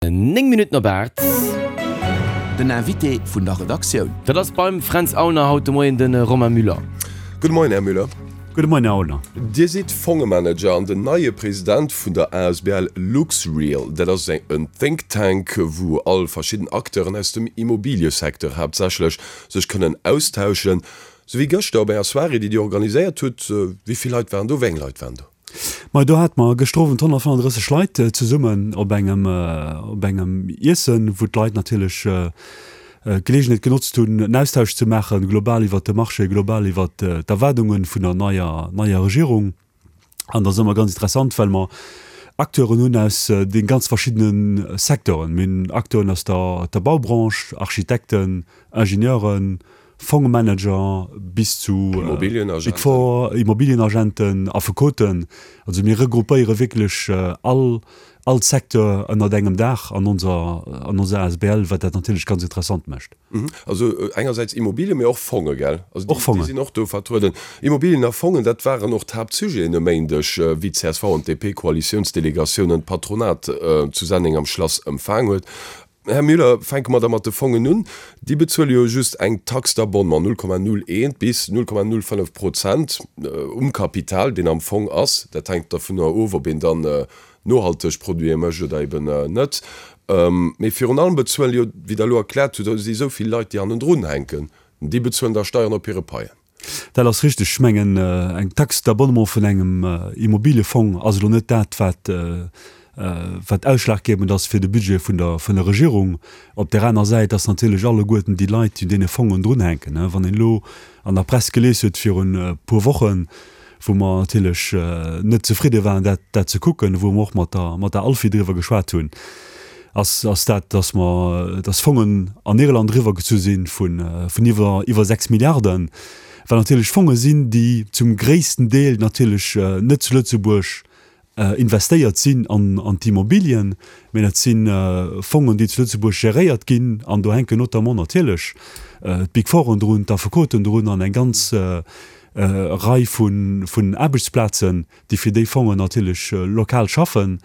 9 Minutten op 8. Den Invité vun der Redaktioun. Dat ass beim Fränz Aulner haut de Moien de Romain Müller. Gudde Moien, Här Müller. Gudde Moien, Här Aulner. Dir sidd Fongemanager an den neie President vun der asbl LuxReal. Dat ass en Think Tank, wou all verschidden Acteuren aus dem Immobiliësecteur haaptsächlech sech kënnen austauschen. Sou wéi gëschter op enger Soirée, déi Dir organiséiert hutt. Wéi vill Leit waren do? Wéi eng Leit waren do? Majo, do hate mer gëschter Owend 135 Leit zesummen op engem, op engem Iessen, wou d'Leit natierlech d'Geleegenheet genotzt hunn, en Austausch ze maachen, global iwwert de Marché, global iwwert d'Erwaardunge vun der neier, neier Regierung. An dat ass ëmmer ganz interessant, well mer Acteuren hunn aus de ganz verschiddene Secteuren. Mir hunn Acteuren aus der, der Baubranche, Architekten, Ingenieuren, Fongmanager bis zu Big Four, Immobilienagenten, Affekoten. Also mir regroupéiere wierklech all all Secteur ënnert engem Daach an onser an onser asbl, wat dat natierlech ganz interessant mécht. Also engersäits Immobilien, mee och Fonge, gell? Also déi déi sinn och do vertrueden. Immobilien a Fongen, dat waren och d'Haaptsujeten e Méindeg, wéi d'CSV an d'DP-Koalitiounsdelegatiounen d'Patronat zu Senneng am Schlass empfaang huet. Här Müller, fänke mer da mat de Fongen un. Déi bezuele jo just eng Taxe d'abonnement, 0,01 bis 0,05 Prozent um Kapital, deen am Fong ass. Dat hänkt dovunner of, ob een dann nohalteg Produite mécht oder eben net. Mee virun allem bezuelen jo, wéi Der elo erkläert hutt, si esou vill Leit, déi hannendrun hänken, déi bezuelen da Steieren op hire Paien. Dat ass richteg. Ech mengen, eng Taxe d'abonnement vun engem Immobiliëfong ass elo net dat, wat, wat ausschlaggebend ass fir de Budget vun der, vun der Regierung. Op där aner Säit ass natierlech alleguerten déi Leit, déi un deene Fongen drunhänken. Wann een elo an der Press gelies huet virun e puer Wochen, wou mer natierlech net zefridde waren, dat, dat ze kucken, wou mer och mat der, mat der ALFI driwwer geschwat hunn, ass, ass dat, dass mer, dass Fongen an Irland eriwwergezu si vun, vun iwwer, iwwer 6 Milliarden, wat natierlech Fonge sinn, déi zum gréissten Deel natierlech net zu Lëtzebuerg investéiert sinn an, an d'Immobilien, mä dat si Fongen, déi zu Lëtzebuerg geréiert ginn an do hänken notamment natierlech d'Big Fouren drun, d'Affekoten drun an eng ganz Rei vun, vun Aarbechtsplazen, déi fir déi Fongen natierlech lokal schaffen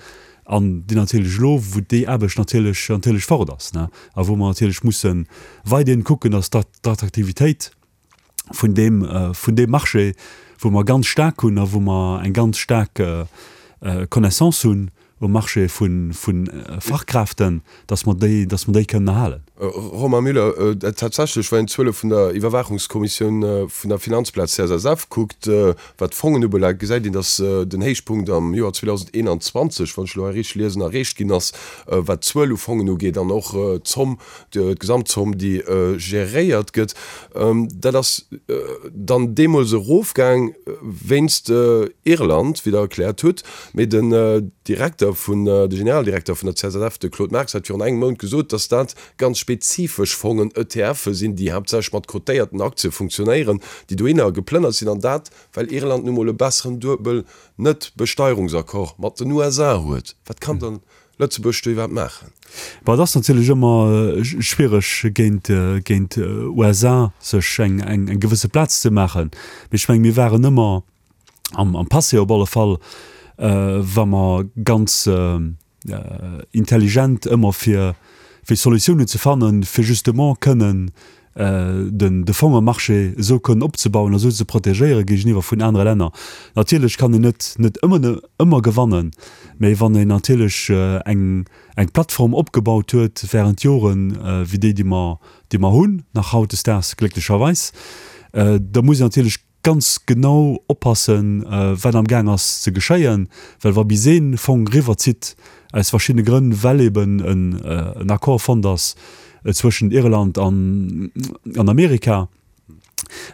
an déi natierlech elo, wou déi Aarbecht natierlech natierlech fort ass, ne, a wou mer natierlech musse weiderhin kucken, dass d'Attraktivitéit vun deem vun deem Marché, wou mer ganz staark hunn a wou mer eng ganz staark Connaissance hunn um Marché vu Fachkräften, dass mer déi, dass mer déi kënnen erhalen. Romain Müller, Tatsächlech, wann een d'Zuele vun der Iwwerwaachungskommissioun vun der Finanzplaz CSSF kuckt, wat d'Fongen ubelaangt, gesäit een, dass den Héichpunkt am Joer 2021, wann ech elo hei richteg liesen, erreecht ginn ass, wat d'Zuel u Fongen ugeet an och d'Zomm, d'Gesamtzomm, déi geréiert gëtt. Dat ass dann deemools erofgaang wéinst Irland, wéi Der erkläert hutt. Mee den Direkter vun, de Generaldirekter vun der CSSF, de Claude Marx, hat virun engem Mount gesot, datt dat ganz spezifesch Fongen, ETFe sinn, déi haaptsächlech mat cotéierten Aktie funktionéieren, déi dohinner geplënnert sinn, an dat, well Irland nu mol e besseren Duebel-Net-Besteierungsaccord mat den USA huet. Wat kann dann Lëtzebuerg do iwwerhaapt maachen? Bon, et ass natierlech ëmmer schwiereg géint, géint USA sech eng, eng gewësse Plaz ze maachen. Mee ech mengen, mir waren ëmmer, am, am Passé op alle Fall, wa mer ganz intelligent ëmmer fir, fir Solutiounen ze fannen, fir justement kënnen den, de Fongemarché esou kënnen opzebauen a esou ze protegéiere géigeniwwer vun anere Länner. Natierlech kann een net, net ëmmer, ëmmer gewannen, mä wann een natierlech eng, eng Plattform opgebaut huet während Joren, wéi déi, déi mer, déi mer hunn, nach hautdesdaags glécklecherweis, da muss een natierlech ganz genau oppassen, wat am Gaang ass ze geschéien, well wa bis ee Fong eriwwerzitt, aus verschiddene Grënn, well eben en Accord fonnt ass zwëschent Irland an Amerika,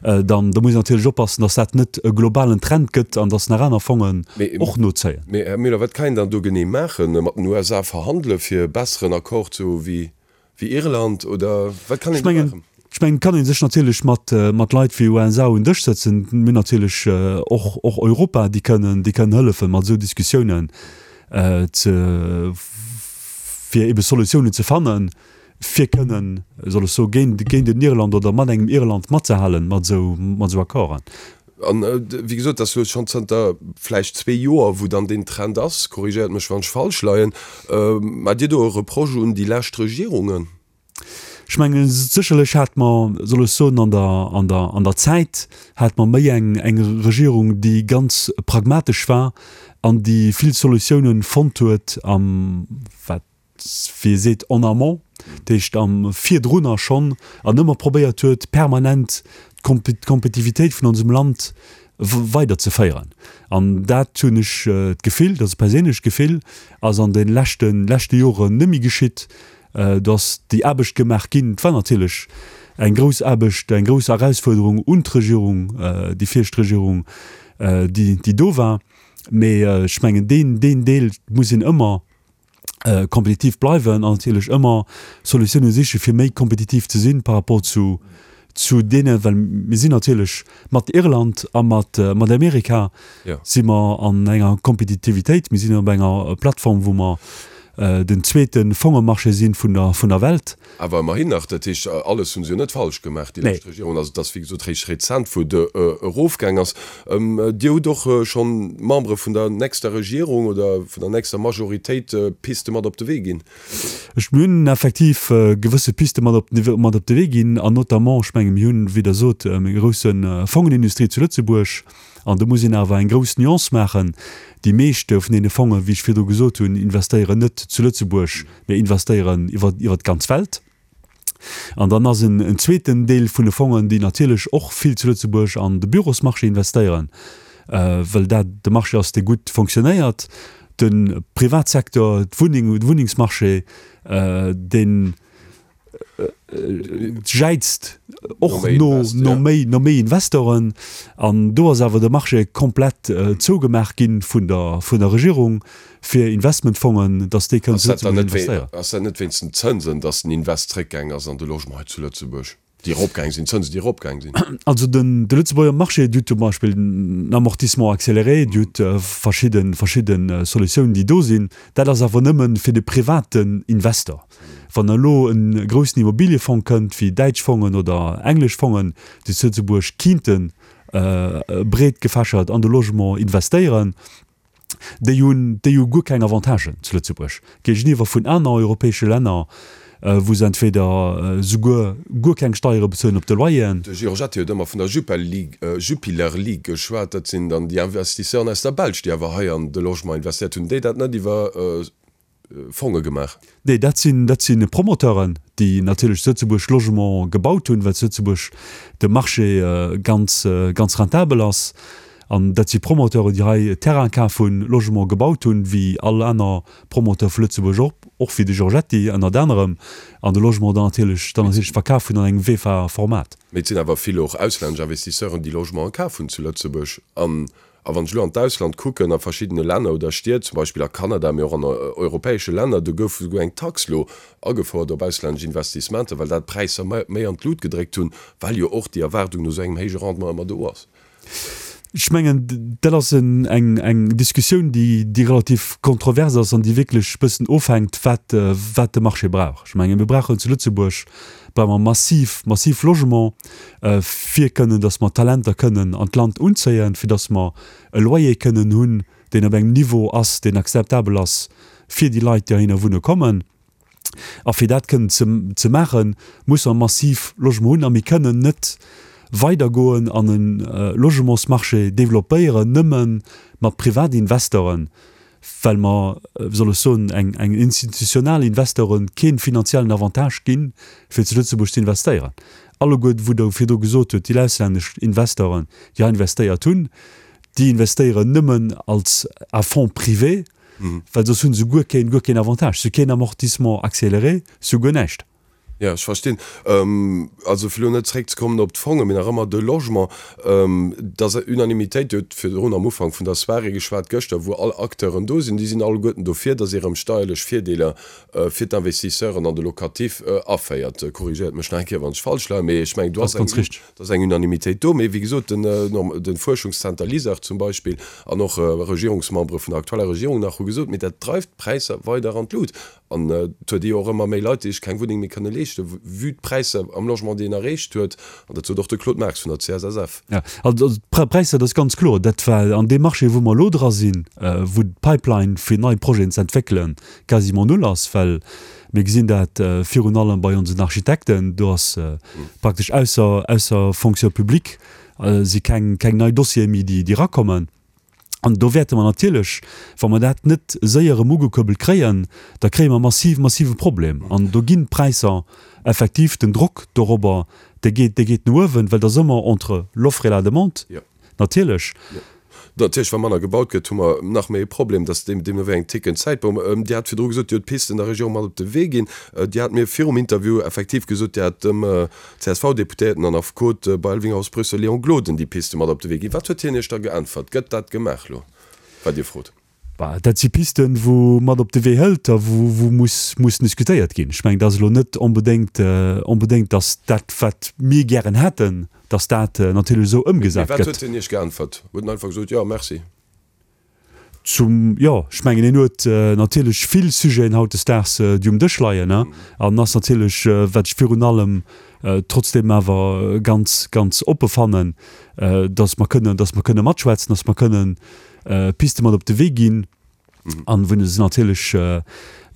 dann da muss een natierlech oppassen, datt dat net e globalen Trend gëtt an datt nach aner Fongen och nozéien. Mee, Här Müller, wat kann een dann do genee maachen? Mat den USA verhandele fir e besseren Accord ze hu wéi Wéi Irland oder wat kann een do maachen? Ech mengen, et kann ee sech natierlech mat, mat Leit wéi USA un Dësch sëtzen. Mir hunn natierlech och, och Europa, déi kënnen, déi kënnen hëllefen, mat esou Diskussiounen ze, fir ebe Solutiounen ze fannen, fir kënnen, soll ech soen, géint, géint en Irland oder mat engem Irland matzehalen, mat esou, mat esou Accorden. An wéi gesot, dat ass elo schonn zënter vläicht zwee Joer, wou dann deen Trend ass, korrigéiert mech wann ech falsch leien, Maacht Dir do e Reproche un déi lescht Regierungen? Ech mengen, sécherlech hate mer, soll ech soen, an der, an der, an der Zäit hate mer méi eng, eng Regierung, déi ganz pragmatesch war an déi vill Solutiounen fonnt huet am, wat, wéi ee seet, en amont, dat heescht am virdrunner schonn, an ëmmer probéiert huet, permanent d'Kompetitivitéit vun onsem Land weiderzeféieren. An dat hunn ech d'Gefill, dat ass e perséinlecht Gefill, ass an de leschte, leschte Joren net méi geschitt. Do ass déi Aarbecht gemaach ginn. Et war natierlech eng grouss Aarbecht, eng grouss Erausfuerderung un d'Regierung, déi viregt Regierung, déi, déi do war. Mee ech mengen, deen, deen Deel muss een ëmmer kompetitiv bleiwen an natierlech ëmmer Solutiounen siche fir méi kompetitiv ze sinn par rapport zu, zu deene, well mir sinn natierlech mat Irland a mat, mat Amerika si mer an enger Kompetitivitéit, mir sinn op enger Plattform, wou mer den zweete Fongemarché si vun der, vun der Welt. Awer ëmmerhin nach, dat heescht, alles hu se jo net falsch gemaach, déi lescht Regierung. Also et ass wéi gesot réischt rezent, wou et erofgaang ass. Dir hutt och schonn Membere vun der nächster Regierung oder vun der nächster Majoritéit Piste mat op de Wee ginn. Ech, mir hunn effektiv gewësse Piste mat op, mat op de Wee ginn an notamment, ech menge mir hunn, wéi Der sot, eng grousse Fongenindustrie zu Lëtzebuerg. An do muss een awer eng grouss Nuance maachen, Déi meescht vun deene Fongen, wéi ech virdru gesot hunn, investéieren net zu Lëtzebuerg, mä investéieren iwwer, iwwer d'ganz Welt. An dann ass en, en zweeten Deel vun de Fongen, déi natierlech och vill zu Lëtzebuerg an de Bürosmarché investéieren, well dat de Marché ass, dee gutt fonctionnéiert. De Privatsecteur, d'Wunneng, de Wunnengsmarché, deen, jäizt och no no méi no méi Investoren an do ass awer de Marché komplett zougemaach ginn vun der vun der Regierung fir Investmentfongen, datt déi kënnen zu Lëtzebuerg investéieren. Ass dat net wéinst den Zënsen, datt den Invest zréckgaang ass an de Logement hei zu Lëtzebuerg, déi eropgaang sinn, d'Zënsen déi eropgaang sinn? Also den de Lëtzebuerger Marché, Dir hutt zum Beispill den Amortissement accéléré, Dir hutt verschidde verschidde Solutiounen déi do sinn. Dat ass awer nëmme fir de privaten Investor. Wann elo e groussen Immobiliëfong kënnt, wéi däitsch Fongen oder englesch Fongen, déi zu Lëtzebuerg kinnte breet gefächert an de Logement investéieren, déi hunn, déi hu guer keng Avantagen zu Lëtzebuerg géigeniwwer vun aner europäesche Länner, wou se entweder souguer guer keng Steiere bezuelen op de Loyeren. De Giorgetti huet ëmmer vun der Jupiler League geschwat. Dat sinn dann déi Investisseuren aus der Belsch, déi awer hei an de Logement investéiert hunn, déi dat net iwwer Fonge gemaach? Nee, dat sinn, dat si Promoteuren, déi natierlech zu Lëtzebuerg Logement gebaut hunn, well zu Lëtzebuerg de Marché ganz, ganz rentabel ass. An dat si Promoteuren, déi hei Terrain kaf hunn, Logement gebaut hunn, wéi all aner Promoteur vu Lëtzebuerg och, och wéi de Giorgetti ënnert anerem, an de Logement dann natierlech, dann natierlech verkaf hunn an engem VEFA-Format. Mee et sinn awer vill och auslännesch Investisseuren, déi Logementen kaf hunn zu Lëtzebuerg. An A wann ech elo an d'Ausland kucken, a verschiddene Länner oder Stied, zum Beispill a Kanada, mee och an europäesche Länner, do gouf esouguer eng Tax elo agefouert op auslännesch Investissementer, well dat d'Präisser méi an d'Lut gedréckt hunn, well jo och déi Erwaardung no esou engem héije Rendement ëmmer do ass. Ech mengen, dat ass eng Diskussioun, déi relativ kontrovers ass an déi wierklech e bëssen ofhänkt, wat de Marché brauch. Ech mengen, mir brauchen zu Lëtzebuerg brauche mer massiv, massiv Logement, fir kënnen, datt mer Talenter kënnen an d'Land unzéien, fir datt mer e Loyer kënnen hunn, deen op engem Niveau ass, deen akzeptabel ass fir déi Leit, déi heihinner wunne kommen. A fir dat kënnen ze, ze maachen, musse mer massiv Logement hunn a mir kënnen net weidergoen an e Logementsmarché développéieren nëmme mat Privatinvestoren, well mer, wéi soll ech soen, eng eng institutional Investoren kee finanziellen Avantage ginn, fir zu Lëtzebuerg ze investéieren. Alleguer, wou Der virdru gesot hutt, déi auslännesch Investoren, déi hei investéiert hunn, déi investéieren nëmmen als à fonds privé, well soss hu se guer keen, guer keen Avantage. Se hu keen Amortissement accéléré, se hu guer näischt. Jo, ech verstinn. Also fir elo net zréckzekommen op d'Fongen, mee nach ëmmer de Logement, et ass Unanimitéit, Dir hutt virdrun am Ufank vun der Soirée geschwat gëschter, wou all Acteuren do sinn, déi sinn alleguerten dofir, datt ee rëm steierlech Virdeeler fir d'Investisseuren an de Locatif aféiert. Korrigéiert mech nach eng Kéier, wann ech falsch leien, mee ech mengen, do ass eng, do ass eng Unanimitéit do. Mee wéi gesot, de Fuerschungszenter LISER zum Beispill an och Regierungsmembere vun der aktueller Regierung nach hu gesot, mee dat dreift d'Präisser weider an d'Lut. An et huet ee jo och ëmmer méi Leit, déi sech keng Wunneng méi kënne leeschten, vue d'Präisser am Logement, déi een erreecht huet. An dat sot och de Claude Marx vun der CSSF. Jo, also d'Präisser, dat ass ganz kloer, dat war an deem Marché, wou mer elo dra sinn, wou d'Pipeline fir nei Projeten ze entwéckelen quasiment null ass, well mir gesinn dat virun allem bei onsen Architekten, do ass praktesch ausser, ausser Fonction publique si keng, keng nei Dossiere méi, déi, déi erakommen. An do wäerte mer natierlech, wa mer dat net séier erëm ugekuerbelt kréien, da kréie mer massiv, massive Problem. An do ginn d'Präisser effektiv, den Drock dorobber, dee geet, dee geet no uewen, well et ass ëmmer entre l'offre et la demande, natierlech. Natierlech, wa manner gebaut gëtt, hu mer nach méi e Problem, dass deem, deemno wéi eng tickend Zäitbomm. Dir hat virdru gesot, Dir hutt d'Pisten der Regierung mat op de Wee ginn. Dir hat mir virum Interview effektiv gesot, Dir hat dem CSV-Deputéierten an Affekot bei Elvinghaus Brüssel Léon Gloden déi Piste mat op de Wee ginn. Wat huet hien Iech da geäntwert? Gëtt dat gemaach elo, wat Dir frot? Bah, dat si Pisten, wou mat op de Wee hëlt a wou, wou muss, mussen diskutéiert ginn. Ech mengen, et ass elo net onbedéngt, onbedéngt, datt dat, wat mir gären hätten, datt dat natierlech esou Mee ëmgesat wat huet gëtt. hien Iech geäntwert? Huet en einfach gesot, Jo, merci? Zum, jo, ech mengen, en huet natierlech vill Sujeten hautdesdaags, déi um Dësch leien, an ass natierlech, wat ech virun allem trotzdeem awer ganz, ganz oppe fannen, dass mer kënnen, dass mer kënne matschwätzen, dass mer kënnen Piste mat op de Wee ginn, an wou se natierlech,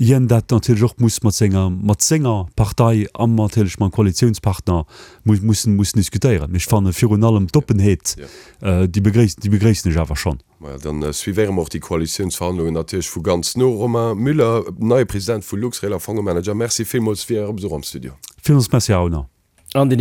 hien dat natierlech och muss mat senger, mat senger Partei an natierlech mam Koalitiounspartner mussen, mussen diskutéieren. Mee ech fanne virun allem d'Oppenheet, déi begréissen, déi begréissen ech awer schonn. Maja, dann suivéiere mer och déi Koalitiounsverhandlungen natierlech vu ganz no. Romain Müller, neie President vu Luxrail a Fongemanager, Merci villmools fir Äre Besuch am Studio. Villmools Merci, Här Aulner. An den.